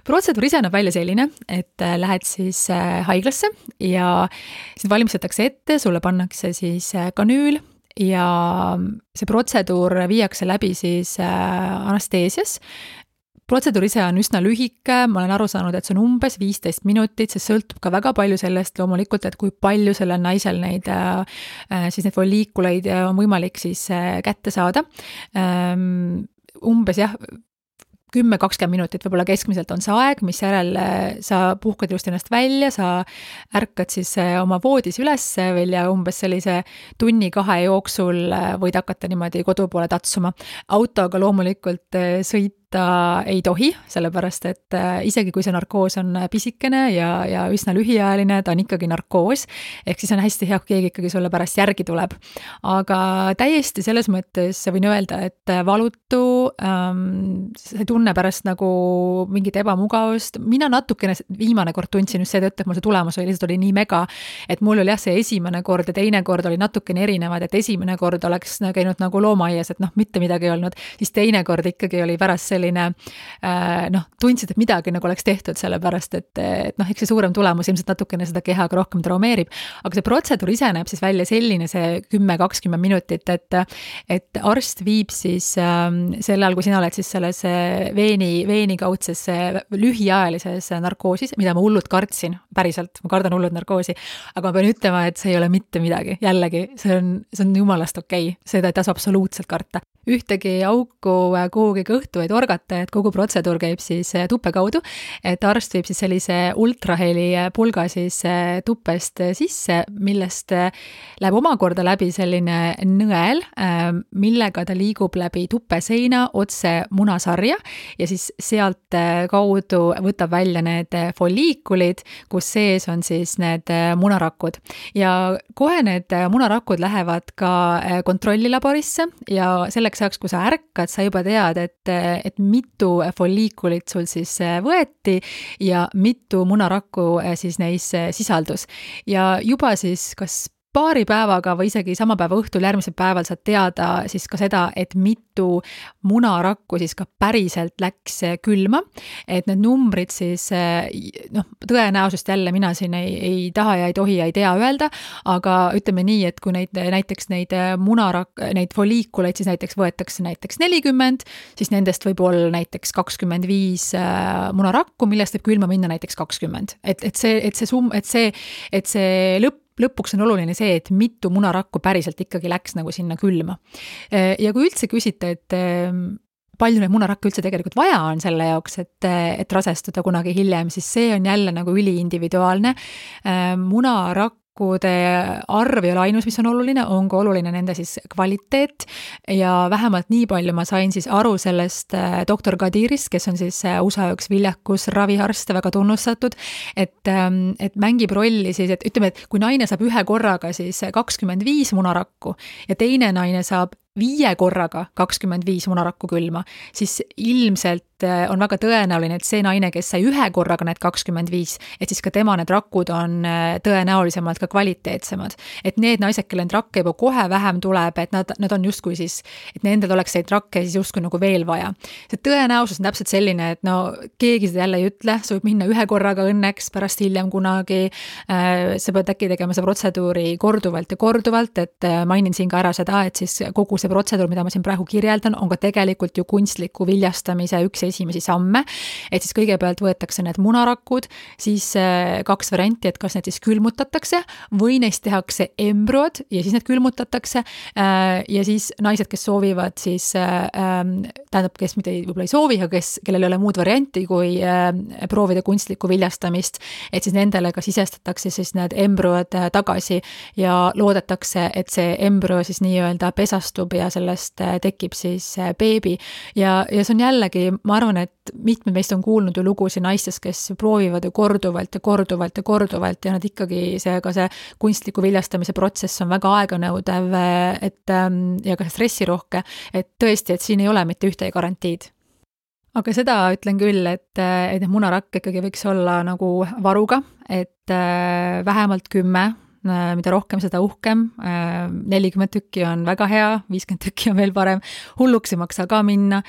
Protseduur ise näeb välja selline, et lähed siis haiglasse ja sind valmistatakse ette, sulle pannakse siis kanüül ja see protseduur viiakse läbi siis anesteesias. Protseduur ise on üsna lühike, ma olen aru saanud, et see on umbes 15 minutit, see sõltub ka väga palju sellest loomulikult, et kui palju sellel naisel neid folliikuleid on võimalik siis kätte saada. Umbes 10-20 minutit võib-olla keskmiselt on see aeg, mis järel sa puhkad just ennast välja, sa ärkad siis oma voodis üles veel ja umbes sellise 1-2 jooksul võid hakata niimoodi kodu poole tatsuma. Autoga loomulikult sõita ei tohi, sellepärast et isegi kui see narkoos on pisikene ja üsna lühiajaline, ta on ikkagi narkoos, ehk siis on hästi hea, kui keegi ikkagi sulle pärast järgi tuleb. Aga täiesti selles mõttes võin öelda, et valutu, see tunne pärast nagu mingit ebamugavust. Mina natukene viimane kord tundsin just seetõttu, et mul see tulemus oli lihtsalt nii mega, et mul oli see esimene kord ja teine kord oli natukene erinevad, et esimene kord oleks käinud nagu loomaaias, et mitte midagi ei olnud, siis teine kord ikkagi oli pärast selline tundsid, et midagi nagu oleks tehtud sellepärast, et eks see suurem tulemus ilmselt natukene seda kehaga rohkem traumeerib, aga see protseduur ise näeb siis välja selline see 10-20 minutit, et arst viib siis selle all, kui sina oled siis selles veenikaudses lühiajalises narkoosis, mida ma hullult kartsin, päriselt, ma kardan hullult narkoosi, aga ma pean ütlema, et see ei ole mitte midagi, jällegi, see on jumalast okei, seda ei tasu absoluutselt karta. Ühtegi auku kuhugi kõhtu ei torgata, et kogu protseduur käib siis tuppe kaudu, et arst viib siis sellise ultraheli pulga siis tuppest sisse, millest läheb omakorda läbi selline nõel, millega ta liigub läbi tuppeseina otse munasarja ja siis sealt kaudu võtab välja need folliikulid, kus sees on siis need munarakud. Ja kohe need munarakud lähevad ka kontrollilaborisse ja selleks ajaks, kui sa ärkad, sa juba tead, et mitu folliikulit sul siis võeti ja mitu munarakku siis neis sisaldus. Ja juba siis kas paari päevaga või isegi sama päeva õhtul järgmisel päeval saad teada siis ka seda, et mitu munarakku siis ka päriselt läks külma, et need numbrid siis tõenäosust jälle mina siin ei taha ja ei tohi ja ei tea öelda, aga ütleme nii, et kui näiteks neid foliikuleid siis näiteks võetakse näiteks 40, siis nendest võib olla näiteks 25 munarakku, millest võib külma minna näiteks 20. Et see lõpuks on oluline see, et mitu munarakku päriselt ikkagi läks nagu sinna külma. Ja kui üldse küsite, et palju neid munarakke üldse tegelikult vaja on selle jaoks, et rasestuda kunagi hiljem, siis see on jälle nagu üliindividuaalne. Munarakkude arv ei ole ainus, mis on oluline, on ka oluline nende siis kvaliteet ja vähemalt nii palju ma sain siis aru sellest doktor Kadirist, kes on siis USA üks viljakus raviarst, väga tunnustatud, et mängib rolli siis, et ütleme, et kui naine saab ühe korraga siis 25 munarakku ja teine naine saab 5 korraga 25 munarakku külma, siis ilmselt on väga tõenäoline, et see naine, kes sai ühe korraga need 25, et siis ka tema need rakud on tõenäolisemalt ka kvaliteetsemad. Et need naised, kelle need rakke juba kohe vähem tuleb, et nad on justkui siis, et nendel oleks neid rakke siis justkui nagu veel vaja. See tõenäosus on täpselt selline, et keegi seda jälle ei ütle, sa võib minna ühe korraga õnneks, pärast hiljem kunagi, sa pead äkki tegema see protseduuri korduvalt ja korduvalt, et mainin siin ka ära seda, et siis kogu see protseduur, mida ma siin praegu kirjeldan, on ka tegelikult ju kunstliku viljastamise üks esimesi samme, et siis kõigepealt võetakse need munarakud, siis 2 varianti, et kas need siis külmutatakse või neist tehakse embrüod ja siis need külmutatakse ja siis naised, kes soovivad siis, tähendab, kes mitte võib-olla ei soovi, aga kellel ei ole muud varianti kui proovida kunstlikku viljastamist, et siis nendele ka sisestatakse siis need embrüod tagasi ja loodetakse, et see embrüo siis nii-öelda pesastub ja sellest tekib siis beebi ja see on jällegi, ma arvan, et mitmed meist on kuulnud ju lugusid naistest, kes proovivad ju korduvalt ja nad ikkagi see kunstliku viljastamise protsess on väga aeganõudev, ja ka stressirohke, et tõesti, et siin ei ole mitte ühtegi garantiid. Aga seda ütlen küll, et need munarakk ikkagi võiks olla nagu varuga, et vähemalt 10, mida rohkem, seda uhkem, 40 tükki on väga hea, 50 tükki on veel parem, hulluks ei maksa ka minna.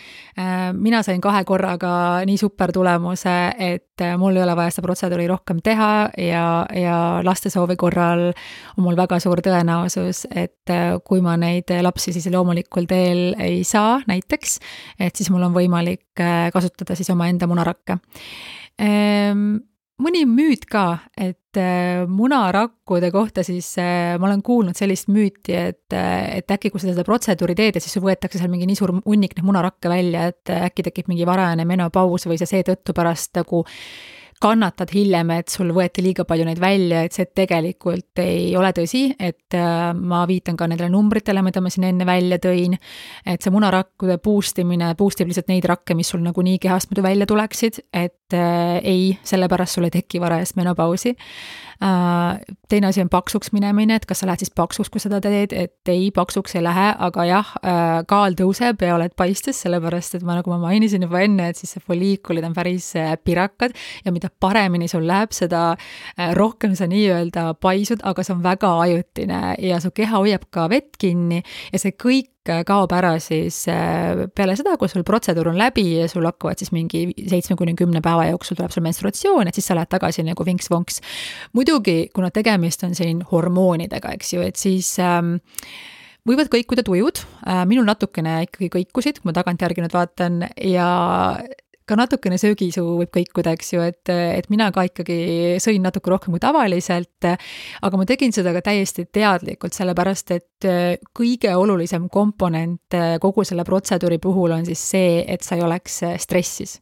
Mina sain 2 korraga nii super tulemuse, et mul ei ole vaja seda protseduuri rohkem teha ja laste soovi korral on mul väga suur tõenäosus, et kui ma neid lapsi siis loomulikul teel ei saa näiteks, et siis mul on võimalik kasutada siis oma enda munarakke. Mõni müüt ka, et munarakkude kohta siis ma olen kuulnud sellist müüti, et äkki kui seda protseduuri teed, et siis võetakse seal mingi nii suur hunnik neid munarakke välja, et äkki tekib mingi varajane menopaus või see seetõttu pärast nagu kannatad hiljem, et sul võeti liiga palju neid välja, et see tegelikult ei ole tõsi, et ma viitan ka nendele numbritele, mida ma siin enne välja tõin, et see munarakkude boostib lihtsalt neid rakke, mis sul nagu nii kehast muidu välja tuleksid, et ei, sellepärast sul ei teki varajast menopausi. Teine asi on paksuks minemine, et kas sa lähed siis paksuks, kui seda teed, et ei, paksuks ei lähe, aga jah, kaal tõuseb ja oled paistes, sellepärast, et nagu ma mainisin juba enne, et siis see foliikulid on päris pirakad ja mida paremini sul läheb, seda rohkem sa nii-öelda paisud, aga see on väga ajutine ja su keha hoiab ka vett kinni ja see kõik kaob ära siis peale seda, kui sul protseduur on läbi ja sul hakkavad siis mingi 7-10 päeva jooksul tuleb sul menstruatsioon, et siis sa lähed tagasi nagu vinks-vonks. Muidugi, kuna tegemist on siin hormoonidega, eks ju, et siis võivad kõikuda tujud, minul natukene ikkagi kõikusid, kui ma tagantjärgi nüüd vaatan ja ka natukene söögisuu võib kõikuda, eks ju, et mina ka ikkagi sõin natuke rohkem kui tavaliselt, aga ma tegin seda ka täiesti teadlikult, sellepärast et kõige olulisem komponent kogu selle protseduuri puhul on siis see, et sa ei oleks stressis.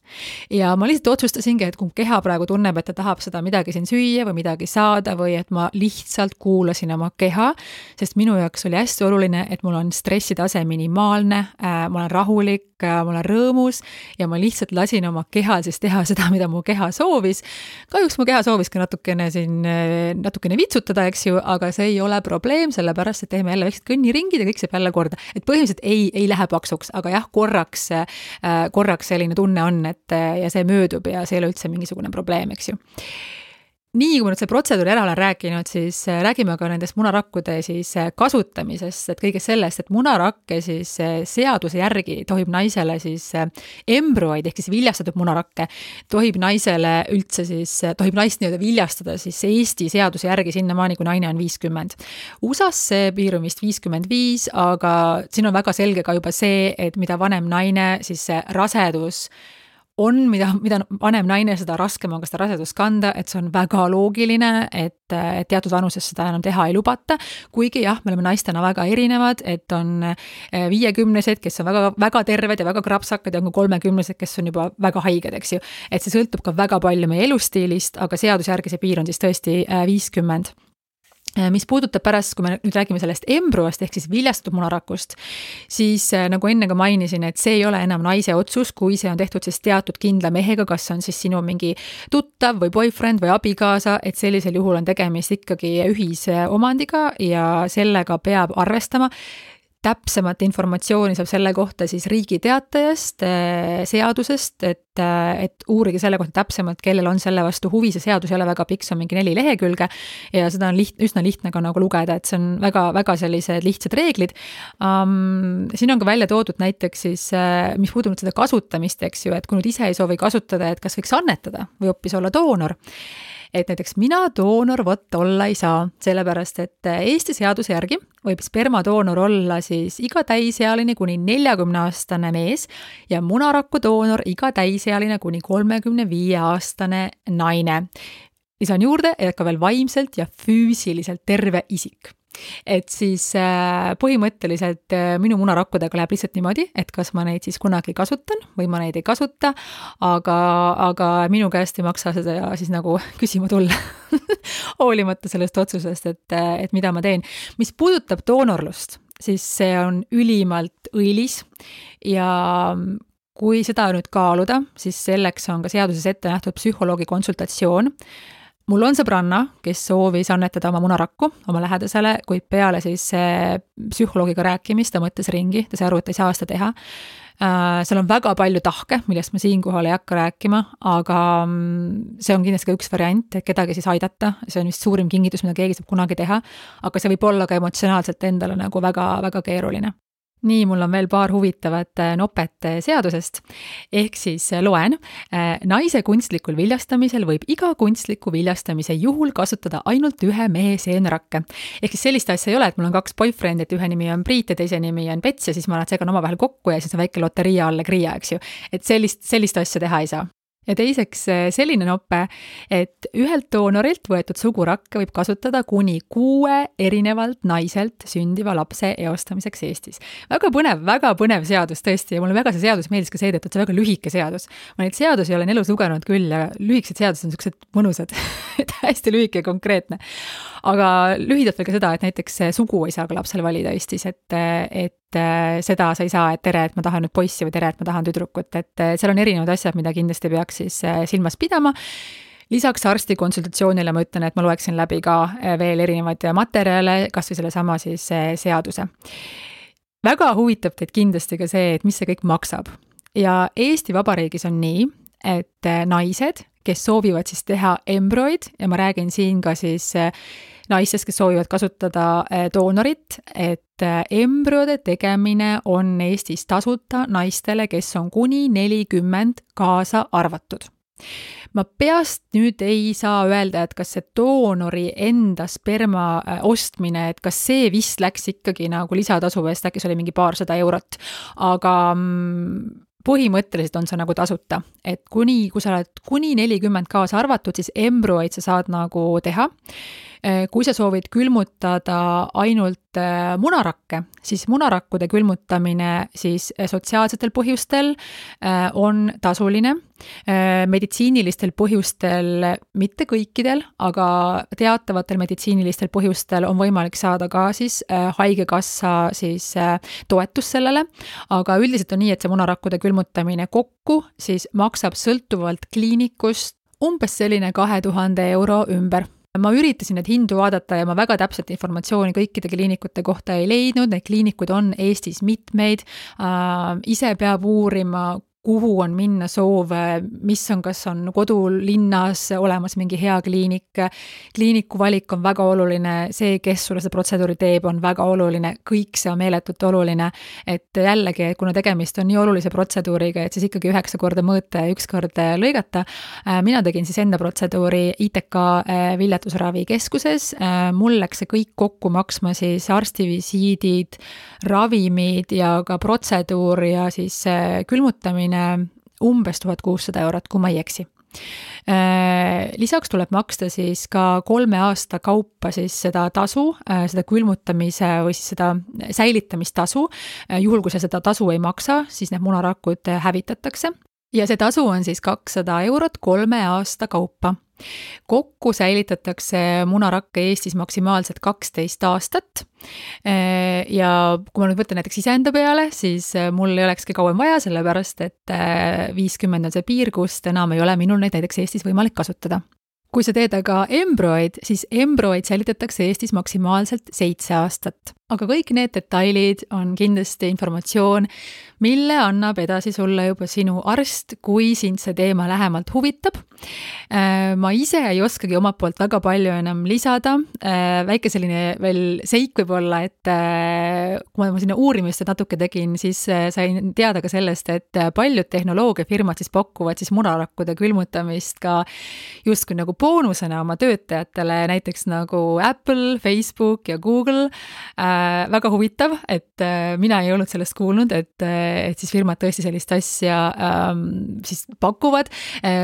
Ja ma lihtsalt otsustasingi, et kui keha praegu tunneb, et ta tahab seda midagi siin süüa või midagi saada või et ma lihtsalt kuulasin oma keha, sest minu jaoks oli hästi oluline, et mul on stressitase minimaalne, ma olen rahulik, ma olen rõõmus ja ma lihtsalt lasin oma kehal siis teha seda, mida mu keha soovis. Kahjuks mu keha soovis ka natukene vitsutada, eks ju, aga see ei ole probleem, sellepärast, et teeme jälle väiksed kõnniringid ja kõik saab jälle korda. Et põhimõtteliselt ei lähe paksuks, aga jah, korraks selline tunne on, et ja see möödub ja see ei ole üldse mingisugune probleem, eks ju. nii kui ma nüüd see protseduuri ära olen rääkinud, siis räägime ka nendest munarakkude siis kasutamisest, et kõigest sellest, et munarakke siis seaduse järgi tohib naisele siis embrüoid ehk siis viljastatud munarakke, tohib naisele üldse siis, tohib naist nii-öelda viljastada siis Eesti seaduse järgi sinnamaani, kui naine on 50. USA-s see piir on vist 55, aga siin on väga selge ka juba see, et mida vanem naine, siis see rasedus on, mida vanem naine, seda raskem on ka seda rasedust kanda, et see on väga loogiline, et teatud vanuses seda enam teha ei lubata, kuigi jah, me oleme naistena väga erinevad, et on 50-sed, kes on väga, väga terved ja väga krapsakad ja on ka 30-sed, kes on juba väga haiged, eks ju. Et see sõltub ka väga palju meie elustiilist, aga seaduse järgi see piir on siis tõesti 50. Mis puudutab pärast, kui me nüüd räägime sellest embrüost ehk siis viljastatud munarakust, siis nagu enne ka mainisin, et see ei ole enam naise otsus, kui see on tehtud siis teatud kindla mehega, kas on siis sinu mingi tuttav või boyfriend või abikaasa, et sellisel juhul on tegemist ikkagi ühise omandiga ja sellega peab arvestama. Täpsemat informatsiooni saab selle kohta siis Riigi Teatajast, seadusest, et uurige selle kohta täpsemalt, kellel on selle vastu huvi, see seadus ei ole väga pikk, see on mingi 4 lehekülge ja seda on üsna lihtne ka nagu lugeda, et see on väga, väga sellised lihtsad reeglid. Siin on ka välja toodud näiteks siis, mis puudub seda kasutamist, eks ju, et kui nüüd ise ei soovi kasutada, et kas võiks annetada või hoopis olla doonor. Et näiteks mina doonor olla ei saa, sellepärast et Eesti seaduse järgi võib spermadoonor olla siis iga täisealine kuni 40-aastane mees ja munaraku doonor iga täisealine kuni 35-aastane naine. Lisan juurde, et ka veel vaimselt ja füüsiliselt terve isik. Et siis põhimõtteliselt minu munarakkudega läheb lihtsalt niimoodi, et kas ma neid siis kunagi kasutan või ma neid ei kasuta, aga minu käest ei maksa seda siis nagu küsima tulla hoolimata sellest otsusest, et mida ma teen. Mis puudutab doonorlust, siis see on ülimalt õilis ja kui seda nüüd kaaluda, siis selleks on ka seaduses ette nähtud psühholoogi konsultatsioon. Mul on sõbranna, kes soovis annetada oma munarakku oma lähedasele, kuid peale siis psühholoogiga rääkimist ta mõtles ringi, ta sai aru, et ei saa seda teha. Seal on väga palju tahke, millest ma siinkohal ei hakka rääkima, aga see on kindlasti ka üks variant, et kedagi siis aidata. See on vist suurim kingitus, mida keegi saab kunagi teha, aga see võib olla ka emotsionaalselt endale nagu väga, väga keeruline. Nii, mul on veel paar huvitavat nopet seadusest. Ehk siis loen, naise kunstlikul viljastamisel võib iga kunstliku viljastamise juhul kasutada ainult ühe mehe seenrakke. Ehk siis sellist asja ei ole, et mul on 2 boyfriend, et ühe nimi on Priit ja teise nimi on Pets ja siis ma nad segan omavahel kokku ja siis on väike loteria alla kriia, eks ju. Et sellist asja teha ei saa. Ja teiseks selline noppe, et ühelt doonorilt võetud sugurakke võib kasutada kuni 6 erinevalt naiselt sündiva lapse eostamiseks Eestis. Väga põnev seadus tõesti ja mulle väga see seadus meeldis ka seetõttu, et see väga lühike seadus. Ma neid seadusi olen elus lugenud küll ja lühikesed seadused on sellised mõnusad, hästi lühike ja konkreetne. Aga lühidalt veel ka seda, et näiteks sugu ei saa ka lapsel valida Eestis, et seda sa ei saa, et tere, et ma tahan nüüd poissi või tere, et ma tahan tüdrukut, et seal on erinevad asjad, mida kindlasti peaks siis silmas pidama. Lisaks arsti konsultatsioonile ma ütlen, et ma loeksin läbi ka veel erinevaid materjale, kas või selle sama siis seaduse. Väga huvitab teid kindlasti ka see, et mis see kõik maksab. Ja Eesti Vabariigis on nii, et naised, kes soovivad siis teha embrüoid ja ma räägin siin ka siis naistest, kes soovivad kasutada doonorit, et embrüode tegemine on Eestis tasuta naistele, kes on kuni 40 kaasa arvatud. Ma peast nüüd ei saa öelda, et kas see doonori enda sperma ostmine, et kas see vist läks ikkagi nagu lisatasu eest, äkki see oli mingi paarsada eurot, aga põhimõtteliselt on see nagu tasuta, et kui sa oled kuni 40 kaasa arvatud, siis embrüoid sa saad nagu teha. Kui sa soovid külmutada ainult munarakke, siis munarakkude külmutamine siis sotsiaalsetel põhjustel on tasuline. Meditsiinilistel põhjustel, mitte kõikidel, aga teatavatel meditsiinilistel põhjustel on võimalik saada ka siis haigekassa siis toetus sellele, aga üldiselt on nii, et see munarakkude külmutamine kokku siis maksab sõltuvalt kliinikust umbes selline 2000 euro ümber. Ma üritasin need hindu vaadata ja ma väga täpset informatsiooni kõikide kliinikute kohta ei leidnud, neid kliinikuid on Eestis mitmeid, ise peab uurima, kuhu on minna soov, mis on, kas on kodulinnas olemas mingi hea kliinik. Kliiniku valik on väga oluline, see, kes sulle seda protseduuri teeb, on väga oluline, kõik see on meeletult oluline, et jällegi, kuna tegemist on nii olulise protseduuriga, et siis ikkagi 9 korda mõõta ja 1 kord lõigata. Mina tegin siis enda protseduuri ITK viljatusravikeskuses. Mul läks see kõik kokku maksma siis arstivisiidid, ravimid ja ka protseduur ja siis külmutamine umbes 1600 €, kui ma ei eksi. Lisaks tuleb maksta siis ka 3 aasta kaupa siis seda tasu, seda külmutamise või siis seda säilitamistasu. Juhul, kui seda tasu ei maksa, siis need munarakud hävitatakse. Ja see tasu on siis 200 € 3 aasta kaupa. Kokku säilitatakse munarakke Eestis maksimaalselt 12 aastat. Ja kui ma nüüd võtan näiteks iseenda peale, siis mul ei olekski kauem vaja, sellepärast et 50 on see piir, kust enam ei ole minul neid näiteks Eestis võimalik kasutada. Kui sa teed aga embryoid, siis embryoid säilitatakse Eestis maksimaalselt 7 aastat. Aga kõik need detailid on kindlasti informatsioon, mille annab edasi sulle juba sinu arst, kui sind see teema lähemalt huvitab. Ma ise ei oskagi omalt poolt väga palju enam lisada. Väike selline veel seik võib olla, et kui ma sinna uurimist natuke tegin, siis sain teada ka sellest, et paljud tehnoloogiafirmad siis pakuvad siis munarakkude külmutamist ka justkui nagu boonusena oma töötajatele, näiteks nagu Apple, Facebook ja Google. Väga huvitav, et mina ei olnud sellest kuulnud, et siis firmad tõesti sellist asja siis pakuvad.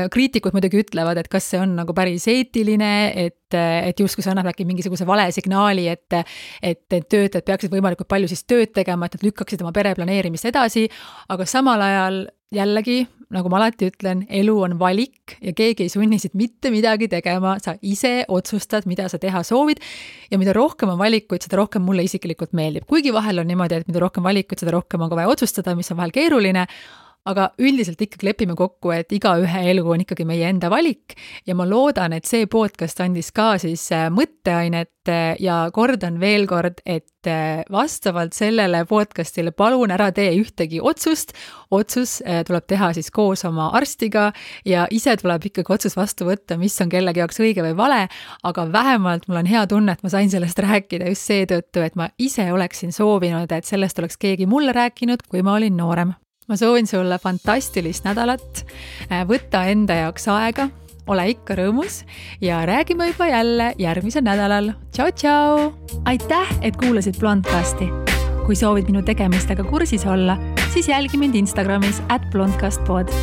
Kriitikud muidugi ütlevad, et kas see on nagu päris eetiline, et justkui see annab äkki mingisuguse vale signaali, et töötajad peaksid võimalikult palju siis tööd tegema, et nad lükkaksid oma pere planeerimist edasi, aga samal ajal jällegi, nagu ma alati ütlen, elu on valik ja keegi ei sunni siit mitte midagi tegema, sa ise otsustad, mida sa teha soovid ja mida rohkem on valikuid, seda rohkem mulle isiklikult meeldib. Kuigi vahel on niimoodi, et mida rohkem valikuid, seda rohkem on ka vaja otsustada, mis on vahel keeruline, aga üldiselt ikkagi lepime kokku, et igaühe elu on ikkagi meie enda valik ja ma loodan, et see podcast andis ka siis mõtteainet ja kordan veel kord, et vastavalt sellele podcastile palun ära tee ühtegi otsust. Otsus tuleb teha siis koos oma arstiga ja ise tuleb ikkagi otsus vastu võtta, mis on kellegi jaoks õige või vale, aga vähemalt mul on hea tunne, et ma sain sellest rääkida just seetõttu, et ma ise oleksin soovinud, et sellest oleks keegi mulle rääkinud, kui ma olin noorem. Ma soovin sulle fantastilist nädalat, võtta enda jaoks aega, ole ikka rõõmus ja räägime juba jälle järgmisel nädalal. Tšau, tšau! Aitäh, et kuulasid Blondcasti. Kui soovid minu tegemistega kursis olla, siis jälgi mind Instagramis @blondcastpod.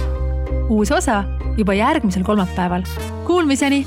Uus osa juba järgmisel kolmapäeval. Kuulmiseni!